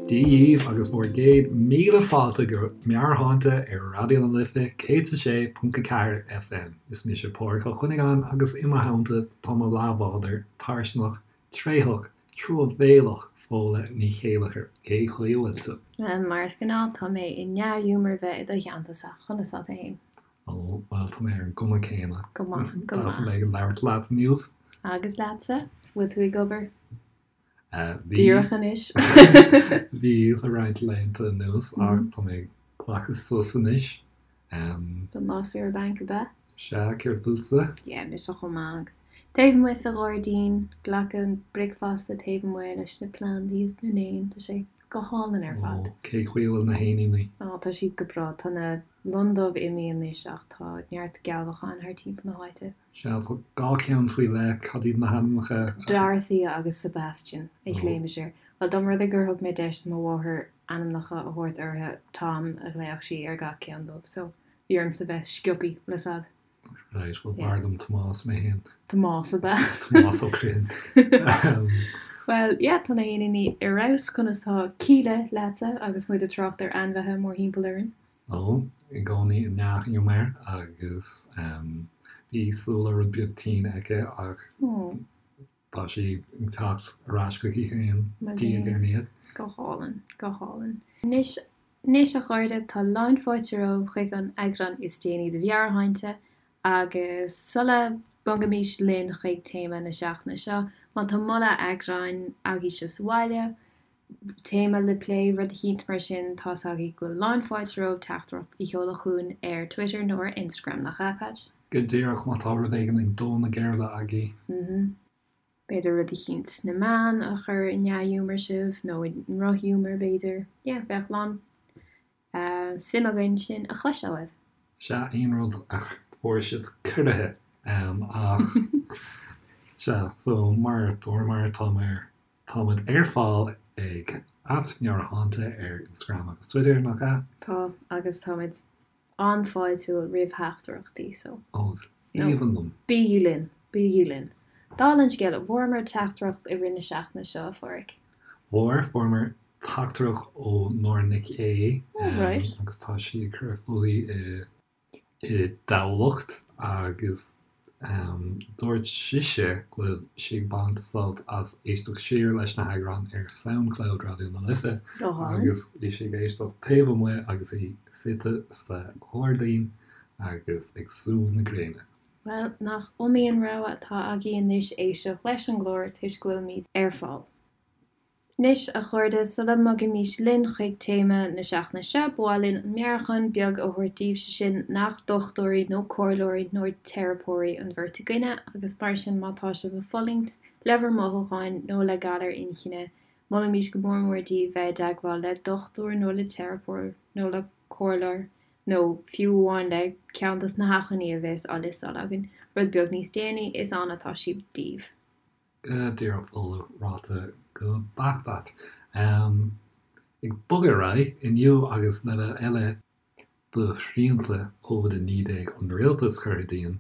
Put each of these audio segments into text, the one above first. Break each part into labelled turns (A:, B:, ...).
A: Dia dhíbh agus bhur gcéad míle fáilte go Meabhairshláinte ar Raidió na Life 106.4 FM. Is mise Pádraig Ó Cuinneagáin agus i mo theannta tá mo leathbhádóir tairseanach, tréitheach, truamhéalach Fódhla Ní Chéilleachair. Cé chaoi a bhfuil tú?
B: Bhuel, mar is gnáth, tá mé i ndea-ghiúmar bheith i do theannta-sa. Conas tá tú fhéin?
A: Ó, bhuel, tá mé ar an gcuma céanna.
B: Go maith, go
A: maith.
B: Deas
A: a bheith ag labhairt leat inniu.
B: Agus leatsa? Bhfuil tú ag obair? Bhí. Díreach anois.
A: Bhí le roinnt laethanta anuas ach tá mé ag glacadh sos anois.
B: Don lá saoire bainc, ab ea?
A: Sea, céard fútsa?
B: Yeah, mise chomh maith agus taobh amuigh sa ghairdín, glacadh bricfeasta taobh amuigh leis na plandaí is na n-éin, tá sé go hálainn ar fad.
A: Ó, cé chaoi a bhfuil na héiníní?
B: Ó, tá siad go breá. Tá na lon dubh imithe anois ach tá neart gealbhacháin thar timpeall na háite.
A: Sea, tá dhá cheann faoi leith, cad iad na hainmneacha?
B: Dorothea agus Sebastian a ghlaoimis air. Bhuel, dá mba rud é gur thug mé deis do mo mháthair ainmneacha a thabhairt orthu, Tom a ghlaofadh sí ar gach ceann dóibh, so bhí ormsa bheith sciobthaí le sad.
A: Right, bhuel b'fhearr liom Tomás mé féin.
B: Tomás ab ea?
A: Tomás Ó Criomhthain.
B: Bhuel, yeah, tá na héiníní ar fheabhas, conas tá Kíla leatsa agus muid ag trácht ar ainmhithe mórthimpeall orainn?
A: Ó, i gcónaí i ndea-ghiúmar agus bhí Sula rud beag tinn aici ach tá sí ag teacht ar ais chuici féin diaidh ar ndiaidh.
B: Go hálainn, go hálainn. Anois, anois a chairde, tá lán fáilte romhaibh chuig an eagrán is déanaí de Mheabhairshláinte agus sula mbogaimis linn chuig téama na seachtaine seo, má tá moladh eagráin agaibhse sa bhaile, téama le plé, rud eicínt mar sin, tá's agaibh go bhfuil lán fáilte romhaibh teachtaireacht a sheoladh chugainn ar Twitter nó ar Instagram, nach ea, Patch?
A: Go díreach, má tá rud éigin ag dó na geirbe agaibh.
B: B'fhéidir rud eicínt sna meáin a chuir i ndea-ghiúmar sibh, nó i ndrochghiúmar, b'fhéidir. Yeah, bheadh lán suim againn sin a chloisteáil uaibh.
A: Sea, aon rud a fuair sibh corraithe, ach sea, so mar a dúramar, tá mé ar Táimid ar fáil ag @meabhairshláinte ar Instagram agus Twitter, nach ea?
B: Tá, agus táimid an-fháiltiúil roimh theachtaireachtaí, so.
A: Ó, is aoibhinn liom.
B: Bígí linn, bígí linn. Dála an scéil, an bhfuaireamar teachtaireacht i rith na seachtaine seo, a Phádraig?
A: Bhfuair, fuaireamar teachtaireacht ó Nóra Nic Aodha,
B: Oh, right.
A: agus tá sí ag cur fúithi i. i dTamhlacht agus dúirt sise go bhfuil sí ag baint sult as éisteacht siar leis na heagráin ar Soundcloud Raidió na Life agus bhí sí ag éisteacht taobh amuigh agus í suite sa ghairdín agus ag sú na gréine.
B: Bhuel, nach iomaí an rogha atá agaibh anois éisteacht leis an gclár toisc go bhfuilimid ar fáil. Anois, a chairde, sula mbogaimis linn chuig téama na seachtaine seo, ba mhaith linn an meabhrúchán beag a thabhairt daoibh, sé sin nach dochtúirí nó comhairleoirí nó teiripeoirí an bheirt againne, agus mar sin má tá sibh ag fulaingt le bhur mothúcháin nó le galar inchinne, molaimid go mór mór daoibh bheith i dteagmháil le dochtúir nó le teiripeoir nó le comhairleoir nó fiú amháin le ceann dos na hacmhainní a bheas á liostáil againn rud beag níos déanaí, is ann atá siad daoibh.
A: Go díreach Fódhla, ráite go beacht agat. Ag bogadh ar aghaidh, inniu agus leibhéal eile de shrianta Covid-19 an rialtais curtha dínn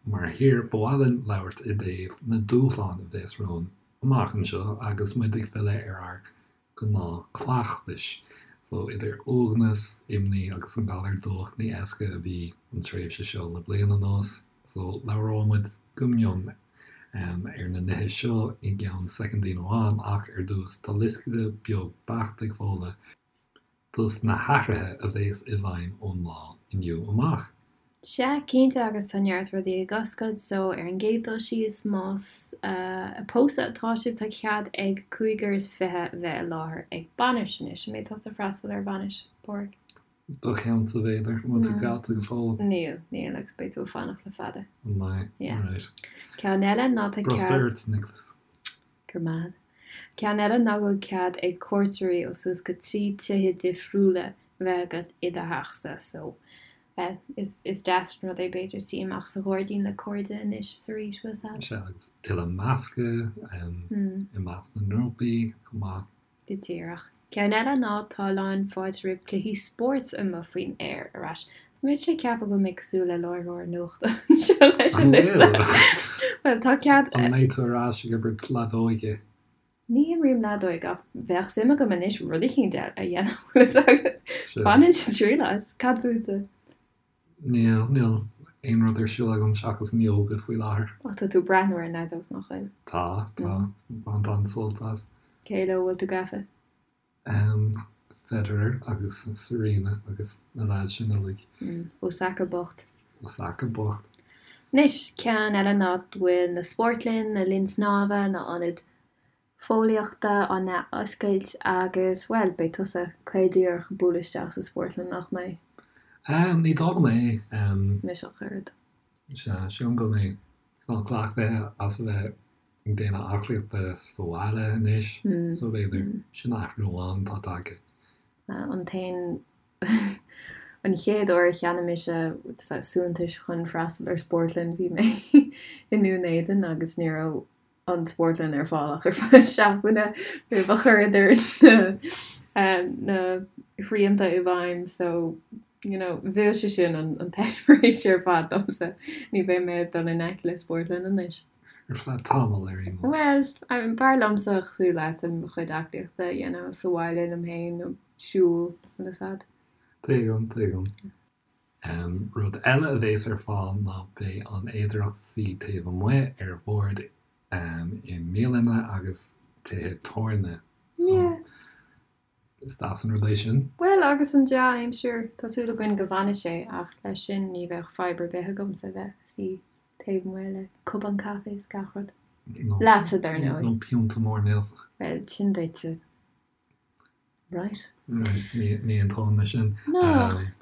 A: mar thír, ba mhaith linn labhairt i dtaobh na dúshláin a bheas romhainn amach anseo agus muid ag filleadh ar ár gnáthchleachtais. So, idir uaigneas, imní agus an galar dubhach, ní éasca a bhí an tréimhse seo le bliain anuas. So, labhróidh muid go mion ar na nithe seo i gceann soicindín amháin ach ar dtús, tá liosta beag beacht ag Fódhla dos na hathruithe a bheas i bhfeidhm ón lá inniu amach.
B: Sea, cinnte, agus tá neart rudaí ag oscailt, so ar an gcéad dul síos, más ag pósadh atá sibh, tá cead ag cúigear is 20 bheith i láthair ag bainis anois. An mbeidh tusa ag freastal ar bhainis, Páraic?
A: Do cheannsa, b'fhéidir. An bhfuil tú geallta go fóill?
B: Níl, níl, agus beidh tú ag fanacht le fada.
A: An mbeidh?
B: Yeah.
A: Alright.
B: Ceann eile ná tá cead.
A: Brustar ort, Nicholas.
B: Go raibh maith. Ceann eile ná go bhfuil cead ag cuairteoirí ó suas go 3 tithe difriúla bheith agat i do theachsa, so Bhuel, is deas an rud é b'fhéidir suí amach sa ghairdín le cairde anois is arís, bhfuil 's a'd.
A: Sea, agus tuilleadh meascadh i measc na ngrúpaí chomh maith.
B: Go díreach. Ceann eile ná tá lán fáilte roimh cluichí spóirt amuigh faoin aer ar ais. Tá mise ag ceapadh go bhfuil mé cosúil le láithreoir nuachta anseo leis an
A: liosta.
B: Bhuel, tá cead.
A: An mbeidh tú ar ais ag imirt leadóige?
B: Ní imrím leadóig ach bheadh suim agam anois rud eicínt a dhéanamh, bhfuil fhios agat. Bhainfinn triail as. Cad fútsa?
A: Níl, níl aon rud ar siúl agam seachas an ióga faoi láthair.
B: Ach tá tú ag breathnú ar an leadóg, nach bhfuil?
A: Tá, tá. Baint an-sult as.
B: Cé leo a bhfuil tú gafa?
A: Federer agus Serena agus na leaids sin uilig.
B: Osaka bocht.
A: Osaka bocht.
B: Anois, ceann eile ná go bhfuil na spórtlann, na linn snámha, na ionaid fóillíochta á n-athoscailt agus, bhuel, beidh tusa caol díreach ag bualadh isteach sa spórtlann, nach mbeidh?
A: Ní dóigh go mbeidh.
B: Mise ach oiread.
A: Sea, sílim go mbeidh cineál cleachtaithe as a bheith ag déanamh aclaíochta sa bhaile anois so b'fhéidir sin athrú amháin atá tagtha.
B: An t-aon an chéad uair a cheannaigh mise suaitheantais chun freastal ar spórtlann bhí mé i nDún Éideann agus ní raibh an spórtlann ar fáil ach ar feadh seachtaine roimh a chuireadar na na srianta i bhfeidhm so you know mhill sé sin an an t-eispéireas ar fad domsa. Ní bheidh mé ag dul in aice le spórtlann anois.
A: Ar feadh tamaill ar aon
B: nós. Bhuel, b'fhearr liomsa cosúil leat mo chuid aclaíochta a dhéanamh sa bhaile liom féin nó siúl bhfuil fhios a'd.
A: Tuigim, tuigim. Rud eile a bhéas ar fáil ná beidh an fhéidearthacht suí taobh amuigh ar bhoird i mbialanna agus tithe tábhairne. So, is deas an rud é sin.
B: Bhuel, agus an dea-aimsir, tá súil againn go bhfanfaidh sé, ach leis sin ní bheadh fadhb ar bith agamsa bheith ag suí taobh amuigh le cupán caife is gach rud. Leatsa, dar ndóigh.
A: Nó piúnta mór millteach.
B: Bhuel, sin duitse. Right.
A: Right, ní aontóinn leis sin.
B: No,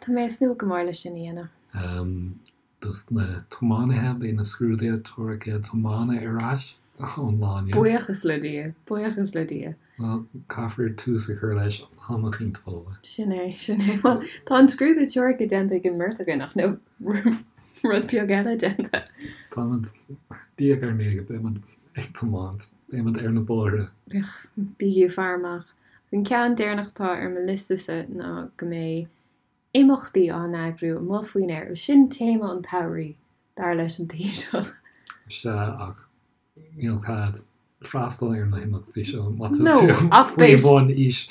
B: tá mé ag súil go mór leis sin a
A: dhéanamh. Dos na tiománaithe, beidh na scrúduithe teoirice tiomána ar ais ón lá inniu.
B: Buíochas le Dia, buíochas le Dia.
A: Bhuel, caithfear tús a chur leis am eicínt, Fódhla.
B: Sin é, sin é. Bhuel, tá an scrúdú teoirice déanta ag an mbeirt againn ach níl rud beag eile déanta.
A: Táimid, diaidh ar ndiaidh, beimid ag tiomáint, beimid ar na bóithre.
B: Bígí ag faire amach. An ceann deireanach atá ar mo liosta-sa ná go mbeidh imeachtaí á n-eagrú amuigh faoin aer. Sin téama an tsamhraidh, dar leis an Taoiseach.
A: Sea, ach níl cead freastal ar na himeachtaí seo má tá tú faoi bhun aois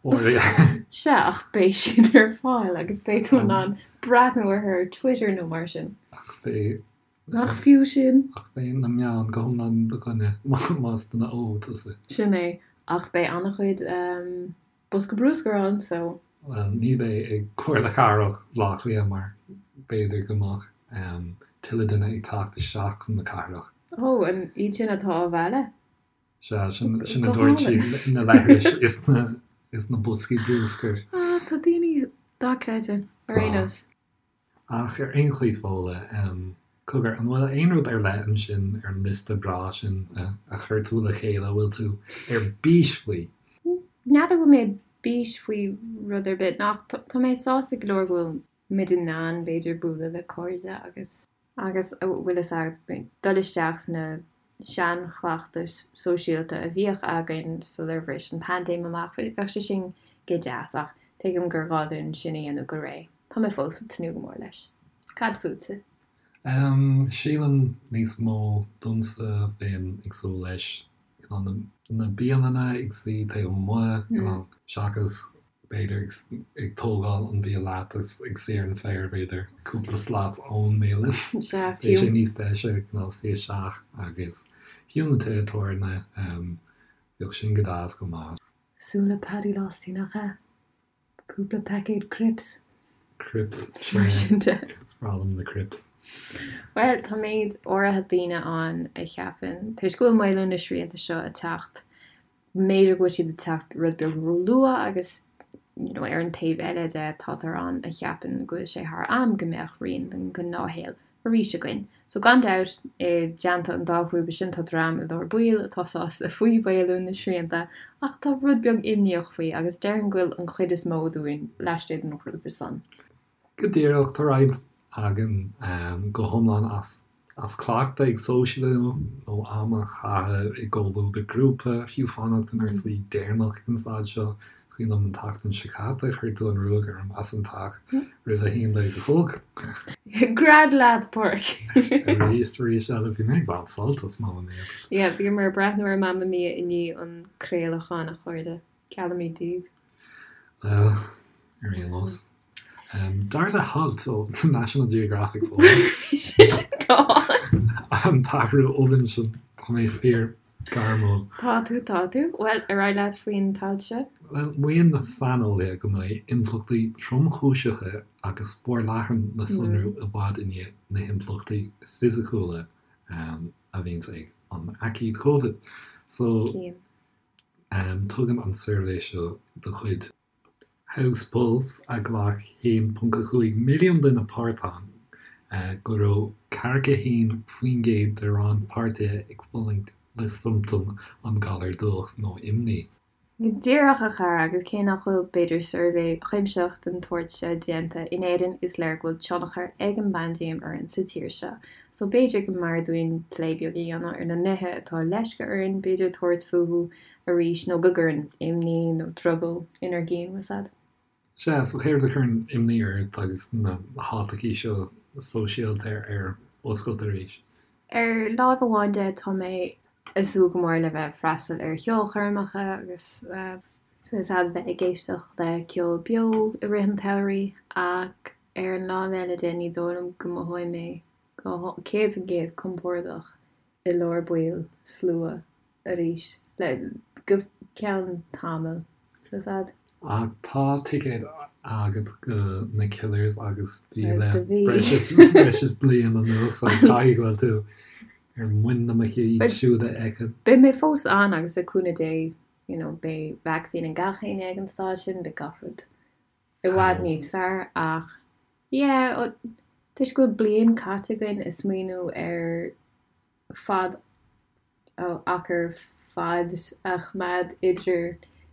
B: áirithe. Sea, ach beidh siad ar fáil agus beidh tú in ann breathnú orthu ar Twitter nó mar sin.
A: Ach beidh.
B: Nach fiú sin?
A: Ach beidh na meáin go hiomlán i do choinne más duine óg tusa.
B: Sin é. Ach beidh an-chuid. Bosca bruscair ann so.
A: Bhuel, ní bheidh ag Comhairle Cathrach Bhaile Átha Cliath mar b'fhéidir go mbeadh tuilleadh duine ag teacht isteach chun na cathrach.
B: Ó, an iad sin atá á mhealladh?
A: Sea, sin a dúirt siad, na leithris is na boscaí bruscair.
B: Ah, tá daoine dochreidte, ar aon nós.
A: Ach ar aon chaoi Fódhla, cogar, an bhfuil aon rud ar leith ansin ar an liosta breá sin a chuir tú le chéile a bhfuil tú ar bís faoi?
B: N'fheadar bhfuil mé ar bís faoi rud ar bith, ach tá mé sásta go leor go bhfuil muid in ann, b'fhéidir, bualadh le cairde agus. Agus, bhfuil fhios agat, dul isteach sna seanchleachtais sóisialta a bhíodh againn sular bhris an paindéim amach, bheadh sé sin go deas ach tuigim gur gá dúinn sin a dhéanamh go réidh. Tá mé fós ag tnúth go mór leis. Cad fútsa?
A: Sílim níos mó domsa bheinn ag súil leis cineál na bialanna ag suí taobh amuigh, cineál seachas b'fhéidir ag tógáil an bia leat agus ag suí ar an féar, b'fhéidir, cúpla slat ón mbialann.
B: Sea,
A: Bheadh sé níos deise cineál suí isteach agus fiú na tithe tábhairne, bheadh sin go deas chomh maith.
B: Cosúil le Paddy Losty, nach ea? Cúpla paicéad crips.
A: Crips, sea.
B: Mar sin de.
A: Is breá liom na crips.
B: Bhuel, tá méid áirithe daoine ann a cheapann, toisc go bhfuil maolú na srianta seo ag teacht, B'fhéidir go bhfuil siad ag teacht rud beag róluath agus you know ar an taobh eile de táthar ann a cheapann go bhfuil sé thar am go mbeadh rian den ghnáthshaol arís againn. So gan dabht, i dteannta an dá ghrúpa sin tá dream i lár baill atá sásta faoi mhaolú na srianta ach tá rud beag imníoch faoi agus déarfainn go bhfuil an chuid is mó dúinn laistigh den ghrúpa san.
A: Go díreach, tá roinnt againn go hiomlán as as cleachtadh ag sóisialú nó am a chaitheamh i gcomhluadar grúpa, fiú fanacht inár suí deireanach ag an staid seo. Cuimhin liom an tseachtain seo caite, chuir tú an ruaig orm as an teach roimh a haon déag a chlog.
B: Gread leat, Pádraic!
A: Arís, arís eile, bhí mé ag baint sult as Mamma Mia.
B: Yeah, bhíomar ag breathnú ar Mamma Mia i ndiaidh an chraolacháin, a chairde. Geallaimid daoibh.
A: Bhuel, ar aon nós. Dar le halt ó National Geographic
B: Bhí sé sin go
A: hálainn. An t-athrú obann sin, tá mé fíor gairmiúil.
B: Tá tú, tá tú. Bhuel, ar aghaidh leat faoin t-alt seo.
A: Bhuel, maíonn na saineolaithe go mbeidh impleachtaí tromchúiseacha agus forleathan le sonrú i bhfad i ndiaidh na himpleachtaí fisiciúla a bhíonns ag an aicíd Covid. So, tugann an suirbhé seo de chuid. House Pulse, a ghlac 1.5 milliún duine páirt ann, go raibh 41% de rannpháirtithe ag fulaingt le siomptóim an ghalair dubhach nó imní.
B: Go díreach, a chara, agus cé nach bhfuil, b'fhéidir, suirbhé cuimsitheach den tsórt seo déanta in Éirinn, is léir go bhfuil tionchar ag an bpaindéim orainn sa tír seo. So b'fhéidir go mb'fhearr dúinn plé beag a dhéanamh ar na nithe atá leisce orainn, b'fhéidir, tabhairt fúthu arís nó go gcuireann imní nó drogall inár gcinn, bhfuil 's a'd.
A: Sea, so céard a chuireann imní ort agus na háiteachaí seo sóisialta ar oscailt arís?
B: Ar láimh amháin de, tá mé ag súil go mór le bheith ag freastal ar cheolchoirmeacha agus bhfuil 's a'd bheith ag éisteacht le ceol beo i rith an tsamhraidh ach ar an láimh eile de ní dóigh liom go mothóidh mé go 100% compordach i lár baill slua arís le go ceann tamaill, bhfuil 's a'd.
A: Ach tá ticéad agat go na Killers agus bhí le breis is breis is bliain anuas so caithfidh go bhfuil tú ar muin na muice iad siúd a fheiceáil.
B: Beidh mé fós ann agus le cúnamh Dé you know beidh vacsaín ag gach éinne ag an staid sin, beidh gach rud i bhfad níos fearr ach yeah toisc go bhfuil bliain caite againn ag smaoineamh ar fad achar fad a choimeád idir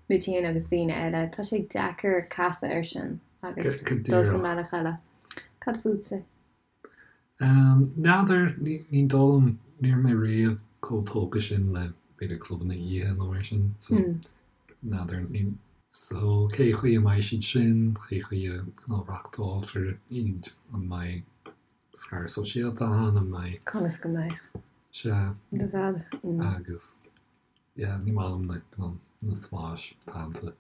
B: muid féin agus daoine eile. Tá sé deacair casadh air sin agus dul sa mbealach eile. Cad fútsa?
A: N'fheadar, ní dóigh liom, ní raibh mé riamh chomh tógtha sin le b'fhéidir clubanna oíche nó mar sin, so n'fheadar, ní. So cé chaoi a mbeidh siad sin, cé chaoi a reáchtálfar iad, an mbeidh scaradh sóisialta ann, an mbeidh.
B: Conas go mbeidh?
A: Sea. Agus. Yeah, ní maith liom na, na spáis teannta.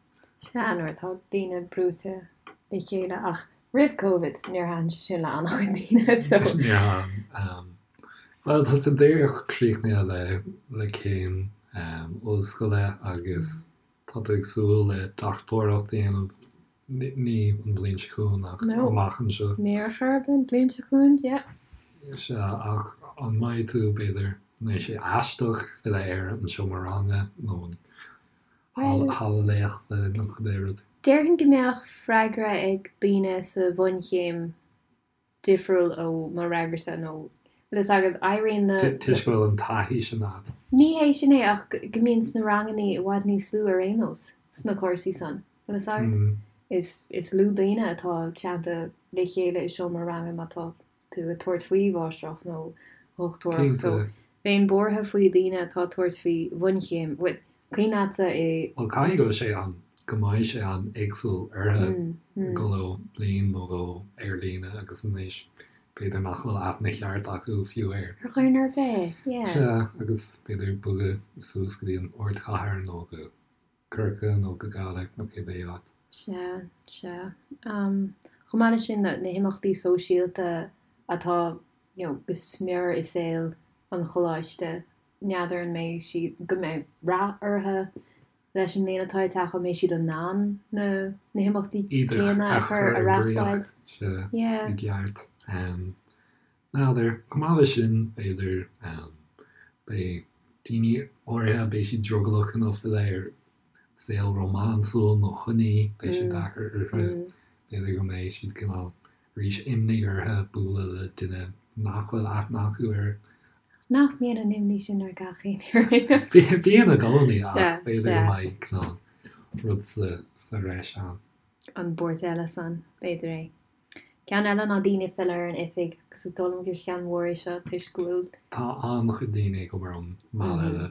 B: Sea, nuair atá daoine brúite le chéile ach roimh Covid níor thaitin sé sin le an-chuid daoine so.
A: Níor thaitin. Bhuel, tá tú díreach críochnaithe le, le céim ollscoile agus tá tú ag súil le dochtúireacht a dhéanamh Ní an bhliain seo chugainn ach amach anseo.
B: Ní ar chor ar bith an bhliain seo chugainn, yeah.
A: Sea, ach an mbeidh tú, b'fhéidir, an mbeidh sé aisteach filleadh ar an seomra ranga nó an halla léachta nó cibé rud?
B: Déarfainn go mbeadh freagra ag daoine sa bhunchéim difriúil ó mo fhreagrasa nó bhfuil fhios agat, éiríonn na.
A: Toisc go bhfuil an taithí sin agat.
B: Ní hé sin é ach go mbíonn sna rangannaí i bhfad níos lú ar aon nós sna cúrsaí san, bhfuil fhios agat? Is is lú daoine atá teannta le chéile i seomra ranga má tá tú ag tabhairt faoi mháistreacht nó dhochtúireacht so bheinn buartha faoi daoine atá ag tabhairt faoi bhunchéim, bhuel, Cuimhin leatsa
A: i. Bhuel, caithfidh go bhfuil sé an, go mbeidh sé an-éagsúil orthu dul ó bhliain nó dhó ar líne agus anois b'fhéidir nach bhfuil aithne cheart acu fiú ar.
B: Ar dhuine ar bith, yeah.
A: Sea, agus b'fhéidir bogadh suas go dtí an ardchathair nó go Corcaigh nó go Gaillimh nó cibé áit.
B: Sea, sea. Chomh maith leis sin, na himeachtaí sóisialta atá, you know, go smior i saol an choláiste, N'fheadar an mbeidh siad, go mbeidh rath orthu leis an mbliain atá ag teacht, an mbeidh siad in ann na na himeachtaí céanna a chur a reáchtáil.
A: Sea, i gceart. N'fheadar, chomh maith leis sin, b'fhéidir, beidh daoine áirithe, beidh siad drogallach cineál filleadh ar saol rómánsúil nó coinní, beidh sé deacair orthu, b'fhéidir go mbeidh siad cineál arís imní orthu bualadh le duine nach bhfuil aithne acu air.
B: Nach mbíonn an imní sin ar gach éinne ar aon
A: nós? Bíonn i gcónaí ach b'fhéidir go mbeidh cineál rud sa bhreis ann.
B: An buairt eile san, b'fhéidir é. Ceann eile ná daoine ag filleadh ar an oifig agus is dóigh liom gur cheann mhór é seo toisc go bhfuil.
A: Tá an-chuid daoine ag obair ón mbaile le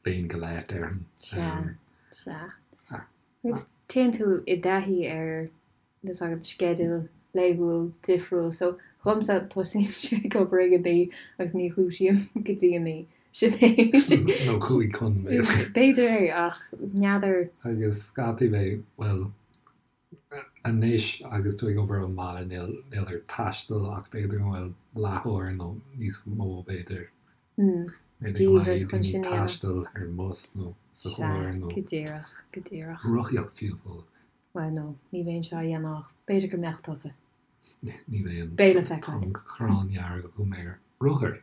A: bliain go leith, déarfainn.
B: Sea, sea. Agus téann tú i dtaithí ar tá a fhios agat sceideal laethúil difriúil so dhomsa tosaímse ag obair ag 9 agus ní dhúisím go dtí 9. Sin é.
A: Nó 5 chun,
B: b'fhéidir. B'fhéidir é ach n'fheadar.
A: Agus scaití beidh, bhuel, anois agus tú ag obair ón mbaile níl níl ort taisteal ach b'fhéidir go bhfuil leathuair nó níos mó b'fhéidir. B'fhéidir go mbeidh daoine taisteal ar an mbus nó sa
B: charr nó. Go díreach, go díreach.
A: Rothaíocht fiú
B: Fódhla. Bhuel no, ní bheinn seo á dhéanamh ach b'fhéidir go mbeadh tusa.
A: Ní bheinn. Beidh le feiceáil. Tá an ghráin dhearg agam ar rothair.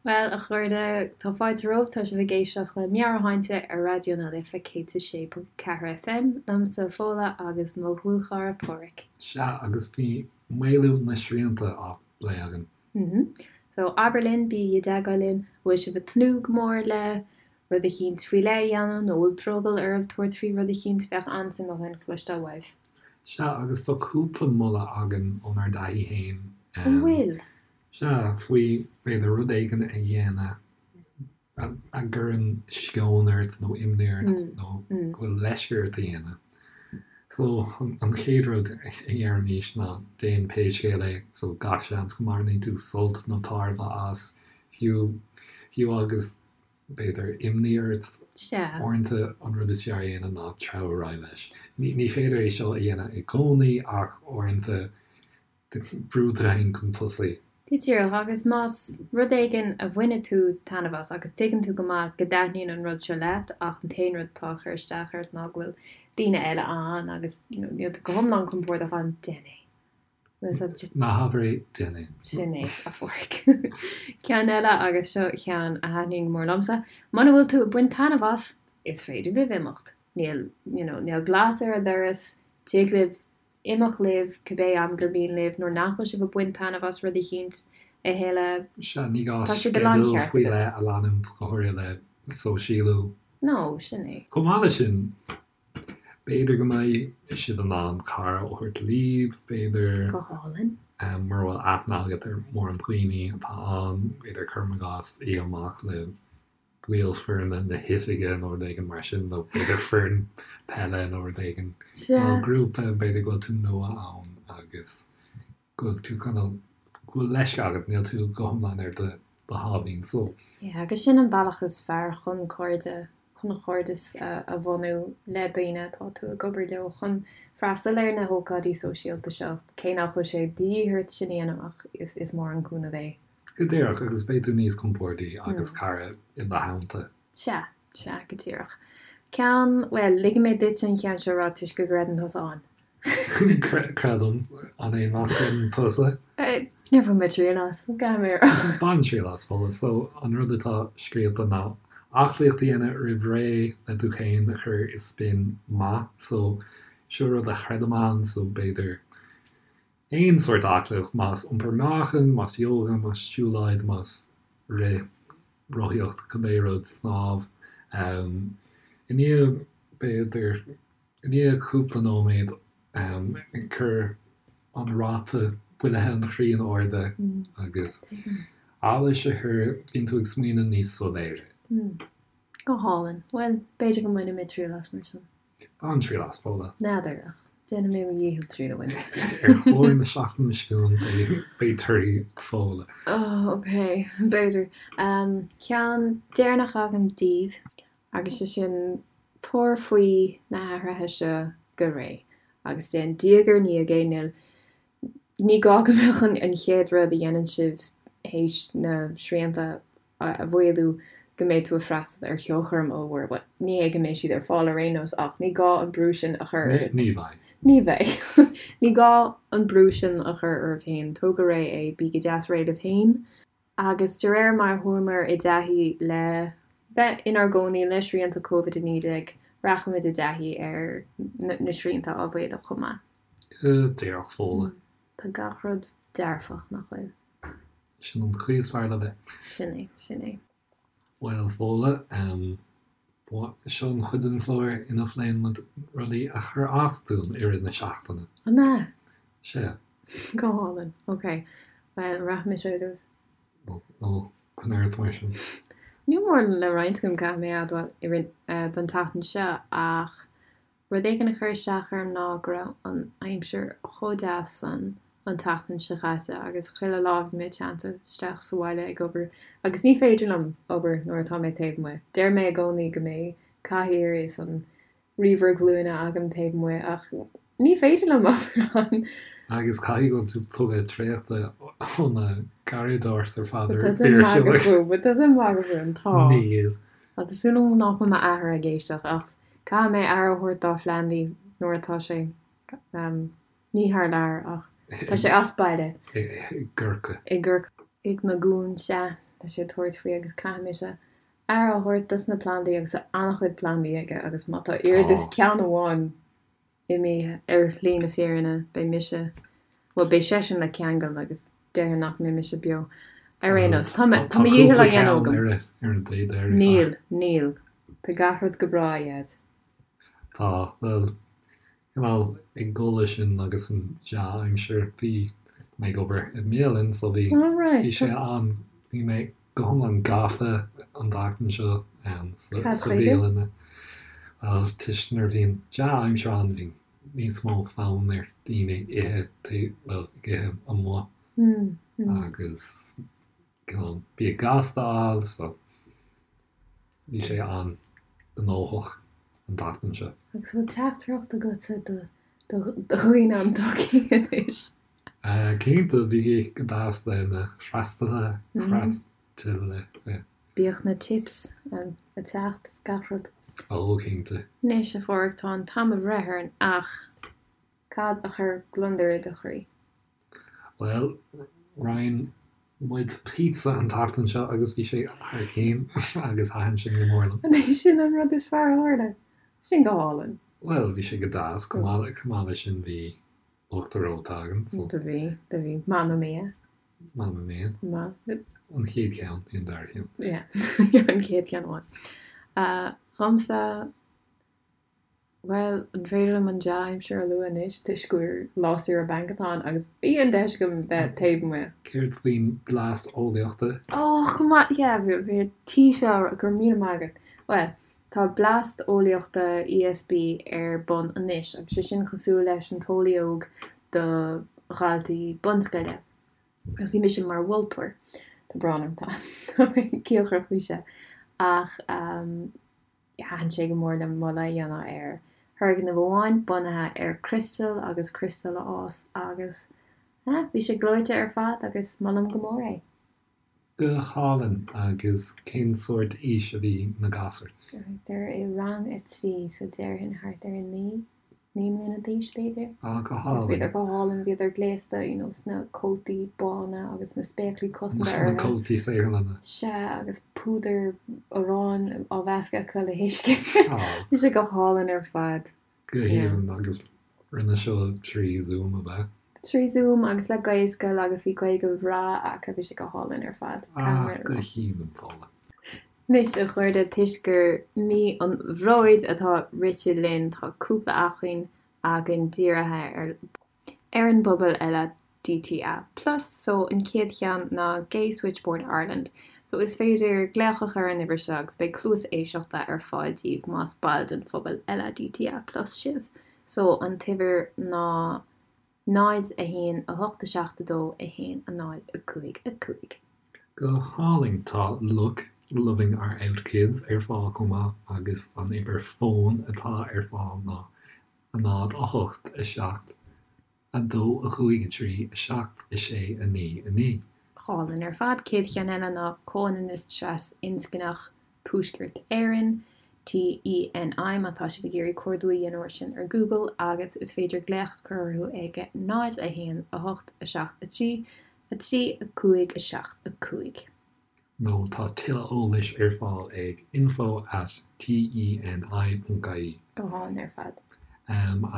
B: Bhuel, a chairde, tá fáilte romhaibh, tá sibh ag éisteacht le Meabhairshláinte ar Raidió na Life 106.4 FM, liomsa Fódhla agus mo dhlúthchara Páraic.
A: Sea, agus bhí maolú na srianta á bplé againn.
B: Mhm. So, abair linn, bígí i dteagmháil linn, an bhfuil sibh ag tnúth go mór le rud eicínt faoi leith a dhéanamh nó an bhfuil drogall oraibh tabhairt faoi rud eicínt, bheadh an-suim againn cloisteáil uaibh.
A: Sea, agus tá cúpla moladh againn ónár dtaithí
B: féin. An bhfuil?
A: Sea, faoi b'fhéidir rud éigin a dhéanamh a gcuireann sceon ort nó imní ort nó go bhfuil leisce ort a dhéanamh. So, an chéad rud a deirimís ná déan pé scéal é, so gach seans go mbainfidh tú sult nó tairbhe as, fiú, fiú agus b'fhéidir, imní ort.
B: Sea.
A: Uaireanta an rud is fearr a dhéanamh ná treabhadh ar aghaidh leis. Ní féidir é seo a dhéanamh i gcónaí ach uaireanta brú tú féin chun tosaigh.
B: Go díreach, agus más rud éigin a bhaineann tú taitneamh as agus tuigeann tú go maith go dtaitníonn an rud seo leat ach an t-aon rud atá ag cur isteach ort ná go bhfuil daoine eile ann agus you know níl tú go hiomlán compordach ann, déan é.
A: Ná habair é, déan é.
B: Sin é, a Pháraic. Ceann eile, agus seo ceann a thaitníonn go mór liomsa, muna bhfuil tú ag baint taitneamh as, is féidir libh imeacht. Níl, you know, níl glas ar an doras, tig libh imeacht libh cibé am gur mian libh nuair nach bhfuil sibh ag baint taitneamh as rud eicínt a thuilleadh.
A: Sea, ní gá Tá sé de láncheart sceideal faoi agat. leith a leanúint, go háirithe le sóisialú.
B: No, sin é.
A: Chomh maith leis sin, B'fhéidir go mbeidh sibh in ann cara a thabhairt libh, b'fhéidir.
B: Go hálainn.
A: Mura bhfuil aithne agat ar mórán daoine atá ann, b'fhéidir cuirim i gcás oíche amach le baill foirne na hoifige nó rud éigin mar sin, nó b'fhéidir foireann peile nó rud éigin.
B: Sea.
A: Nó grúpa, b'fhéidir go bhfuil tú nua ann agus go bhfuil tú cineál, go bhfuil leisce agat, níl tú go hiomlán ar do do sháimhín só.
B: Yeah, agus sin an bealach is fearr chun cairde, chun cairdeas a bhunú le daoine atá tú ag obair leo, chun freastal ar na hócáidí sóisialta seo, cé nach bhfuil sé de dhíth ort sin a dhéanamh ach is is mór an cúnamh é.
A: Go díreach, agus beidh tú níos compórdaí agus cara i do theannta.
B: Sea, sea, go díreach. Ceann, bhuel, ligfidh mé duitse an ceann seo a rá toisc go gcreideann tusa ann.
A: Creidim. An é nach gcreideann tusa?
B: Níor bhain mé triail as, caithfidh mé a
A: rá. Bain triail as, Fódhla. So, an rud atá scríofa ná aclaíocht a dhéanamh roimh ré le tú féin a chur i spin maith. So, seo rud a chreidim ann, so b'fhéidir aon sórt aclaíocht, más iompar meáchain, más yoga, más siúlóid, más rith, rothaíocht, cibé rud, snámh. I ndiaidh, b'fhéidir, i ndiaidh cúpla nóiméad ag cur an ráta bualadh an chroí in airde agus allas a chur, bíonn tú ag smaoineamh níos soiléire.
B: Go hálainn. Bhuel, b'fhéidir go mbainfidh mé triail as mar sin.
A: Bain triail as, Fódhla.
B: N'fheadar, ach déanfaidh mé mo dhícheall triail a bhaint
A: as. Ar chlár na seachtaine seo chugainn beidh torthaí Fódhla.
B: Oh, ok, b'fhéidir. Ceann deireanach agam daoibh, agus sé sin, tabhair faoi na hathruithe seo go réidh, agus déan diaidh ar ndiaidh é, níl Ní gá go mbeadh an chéad rud a dhéanann sibh théis na srianta a mhaolú go mbeidh tú ag freastal ar cheolchoirm ollmhór. Bhuel, ní hé go mbeidh siad ar fáil ar aon nós ach ní gá an brú sin a chur ort.
A: Ní bheidh.
B: Ní bheidh. Ní gá an brú sin a chur oraibh féin. Tóg go réidh é, bí go deas réidh libh féin. Agus de réir mar a chuamar i dtaithí le bheith inár gcónaí le srianta Covid-19, rachaimid i dtaithí ar na srianta á mhaolú chomh maith.
A: Go díreach, Fódhla.
B: Tá gach rud dearfach, nach bhfuil?
A: Sin an chaoi is fearr le bheith.
B: Sin é, sin é.
A: Bhuel, Fódhla, seo an chuid den chlár ina phléann muid rudaí a chuir as dúinn i rith na seachtaine.
B: An ea?
A: Sea.
B: Go hálainn. Ok. Bhuel, rachaidh mise ar dtús.
A: Ó, coinnigh ort mar sin.
B: Níl mórán le roinnt agam, caithfidh mé a admháil, i rith, don tseachtain seo, ach. Rud éigin a chuir isteach orm ná go raibh an aimsir chomh deas san an tseachtain seo chaite agus chuile lá bhí mé teannta isteach sa bhaile ag obair agus ní féidir liom obair nuair atá mé taobh amuigh. Deir mé i gcónaí go mbeidh cathaoir is an ríomhaire glúine agam taobh amuigh ach ní féidir liom obair ann.
A: Agus caithfidh go bhfuil tú tugtha traochta ó na garraíodóireacht ar fad
B: ar mhagadh fúm, magadh fúm, tá.
A: Níl.
B: Tá súil agam nach bhfuil m'athair ag éisteacht ach caithfidh mé aire a thabhairt dá phlandaí nuair atá sé, ní thar lear ach tá sé as baile.
A: I gCorcaigh.
B: I gCorcaigh na gCon, sea, tá sé ag tabhairt faoi agus caithfidh mise aire a thabhairt dos na plandaí agus tá an-chuid plandaí aige agus má tá oiread is ceann amháin imithe ar shlí na fírinne, beidh mise, bhuel, beidh seisean le ceangal agus déarfainn nach mbeidh mise beo. Ar aon nós, tá mé, tá mo dhícheall á dhéanamh agam.
A: Ar an taobh deiridh.
B: Níl, níl. Tá gach rud go breá, a Dhaid.
A: Tá, bhuel, cineál ag dul leis sin agus an dea-aimsir, bhí mé ag obair i mbialann so bhí, bhí sé an, bhí mé go hiomlán gafa an tseachtain seo sa bhialann. Bhuel, toisc nuair a bhíonn dea-aimsir ann bhíonn níos mó fonn ar daoine ithe, bhuel, ag ithe amuigh agus cineál bia gasta a fháil so bhí sé an-ghnóthach an tseachtain seo.
B: Agus bhfuil teachtaireacht agatsa do dhaoine an tsochaí anois?
A: Cinnte, bígí go deas le na freastalaithe, freastalaithe.
B: Bíodh na tips ag teacht is gach rud.
A: Ó, cinnte.
B: Anois, a Pháraic, tá an t-am ag breith orainn ach cad a chuir gliondar i do chroí?
A: Bhuel, roinn muid pizza an tseachtain seo agus bhí sé thar cinn agus thaitin sé go mór liom.
B: An é sin an rud is fearr a tharla? Sin go hálainn.
A: Bhuel, bhí sé go deas. Chomh maith leis sin bhí uachtar reoite againn.
B: So. Do bhí, do bhí. Mamma mia.
A: Mamma mia.
B: Ma.
A: An chéad cheann, ní an dara ceann.
B: Yeah, an chéad cheann amháin. Uh, Dhomsa, bhuel, an féidir liom an dea-aimsir a lua anois toisc gur lá saoire bainc atá ann agus bhí an deis agam bheith taobh amuigh.
A: Céard faoin Blast Eolaíochta?
B: Oh, chomh maith, yeah, bhí bhí tí seo go raibh míle maith agat. Bhuel, Tá Blast Eolaíochta ESB ar bun anois agus sé sin cosúil leis an tEolaí Óg do dhaltaí bunscoile. Agus bhí mise mar mholtóir. Tá brón orm, tá tá mé cíocrach faoi seo. Ach thaitin sé go mór liom moladh a dhéanamh ar thurgnamh amháin bunaithe ar criostail agus criostail a fhás agus bhí sé gleoite ar fad agus molaim go mór é.
A: Go hálainn. Agus cén sórt aois a bhí na gasúir?
B: Thart ar i rang a 3, so déarfainn thart ar 9, 9 mbliana d'aois b'fhéidir.
A: Ah, go hálainn.
B: Agus bhíodar go hálainn, bhíodar gléasta, you know, sna cótaí bána agus na spéaclaí cosanta
A: orthu. Na cótaí saotharlainne.
B: Sea, agus púdar aráin á mheascadh acu le huisce. Bhí sé go hálainn ar fad.
A: Go haoibhinn, agus rinne seo trí Zoom, ab ea?
B: Trí Zoom agus le Gaelscoil agus bhí Gaeilge bhreá acu, bhí sé go hálainn ar fad.
A: Ah, go haoibhinn, Fódhla.
B: Anois, a chairde, toisc gur mí an Bhróid atá rite linn, tá cúpla acmhainn againn dírithe ar ar an bpobal LADTA plus. So an chéad cheann ná Gay Switchboard Ireland. So is féidir glaoch a chur ar an uimhir seo agus beidh cluas éisteachta ar fáil daoibh más baill den phobal LADTA plus sibh. So an t-uimhir ná 0 1 8 7 2 1 0 5 5.
A: Go hálainn! Tá Look, Loving Our Out Kids ar fáil chomh maith agus an uimhir fóin atá ar fáil ná 0 8 7 2 5 3 7 6 9 9.
B: Hálainn ar fad. Chéad cheann eile ná Comhionannas Tras-Inscneach Tuaisceart Éireann, TENI, má tá sibh ag iarraidh cuardú a dhéanamh air sin ar Google agus is féidir glaoch a chur orthu ag 0 1 8 7 3 3 5 7 5.
A: nó tá tuilleadh eolais ar fáil ag info at teni.ie.
B: Go hálainn ar fad.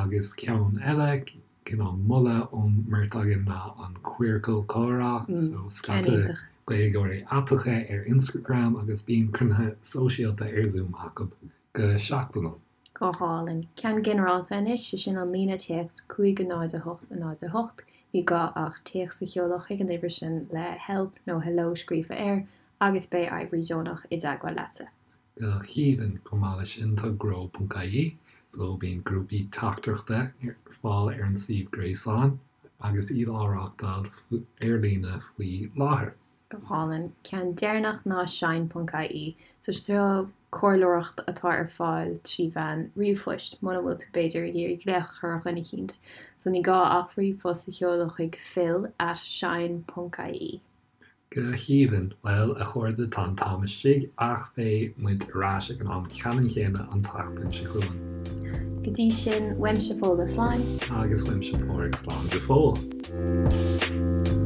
A: Agus ceann eile, cineál moladh ón mbeirt againn ná an Queercal Comhrá, so scata Gaeilgeoirí aiteacha ar Instagram agus bíonn cruinnithe sóisialta ar Zoom acu go seachtainiúil.
B: Go hálainn. Ceann ginearálta anois, sé sin an líne téacs 5 0 8 0 8. Ní gá ach téacs a sheoladh chuig an uimhir sin le help nó hello scríofa air agus beidh oibrí deonach i dteagmháil leatsa.
A: Go haoibhinn. Chomh maith leis sin tá grow.ie. So bíonn grúpaí teachtaireachta ar fáil ar an suíomh gréasáin agus iad á reáchtáil ar líne faoi láthair.
B: Go hálainn. Ceann deireanach ná shine ponc ie. So seo comhairleoireacht atá ar fáil trí mheán ríomhphoist muna bhfuil tú b'fhéidir ag iarraidh glaoch a chur ar dhuine eicínt. So ní gá ach ríomhphost a sheoladh chuig phil at shine ponc ie.
A: Go haoibhinn. Bhuel, a chairde, tá an t-am istigh ach beidh muid ar ais ag an am ceannann céanna an tseachtain seo chugainn.
B: Go dtí sin, uaimse Fódhla slán.
A: Agus uaimse Pádraig slán go fóill.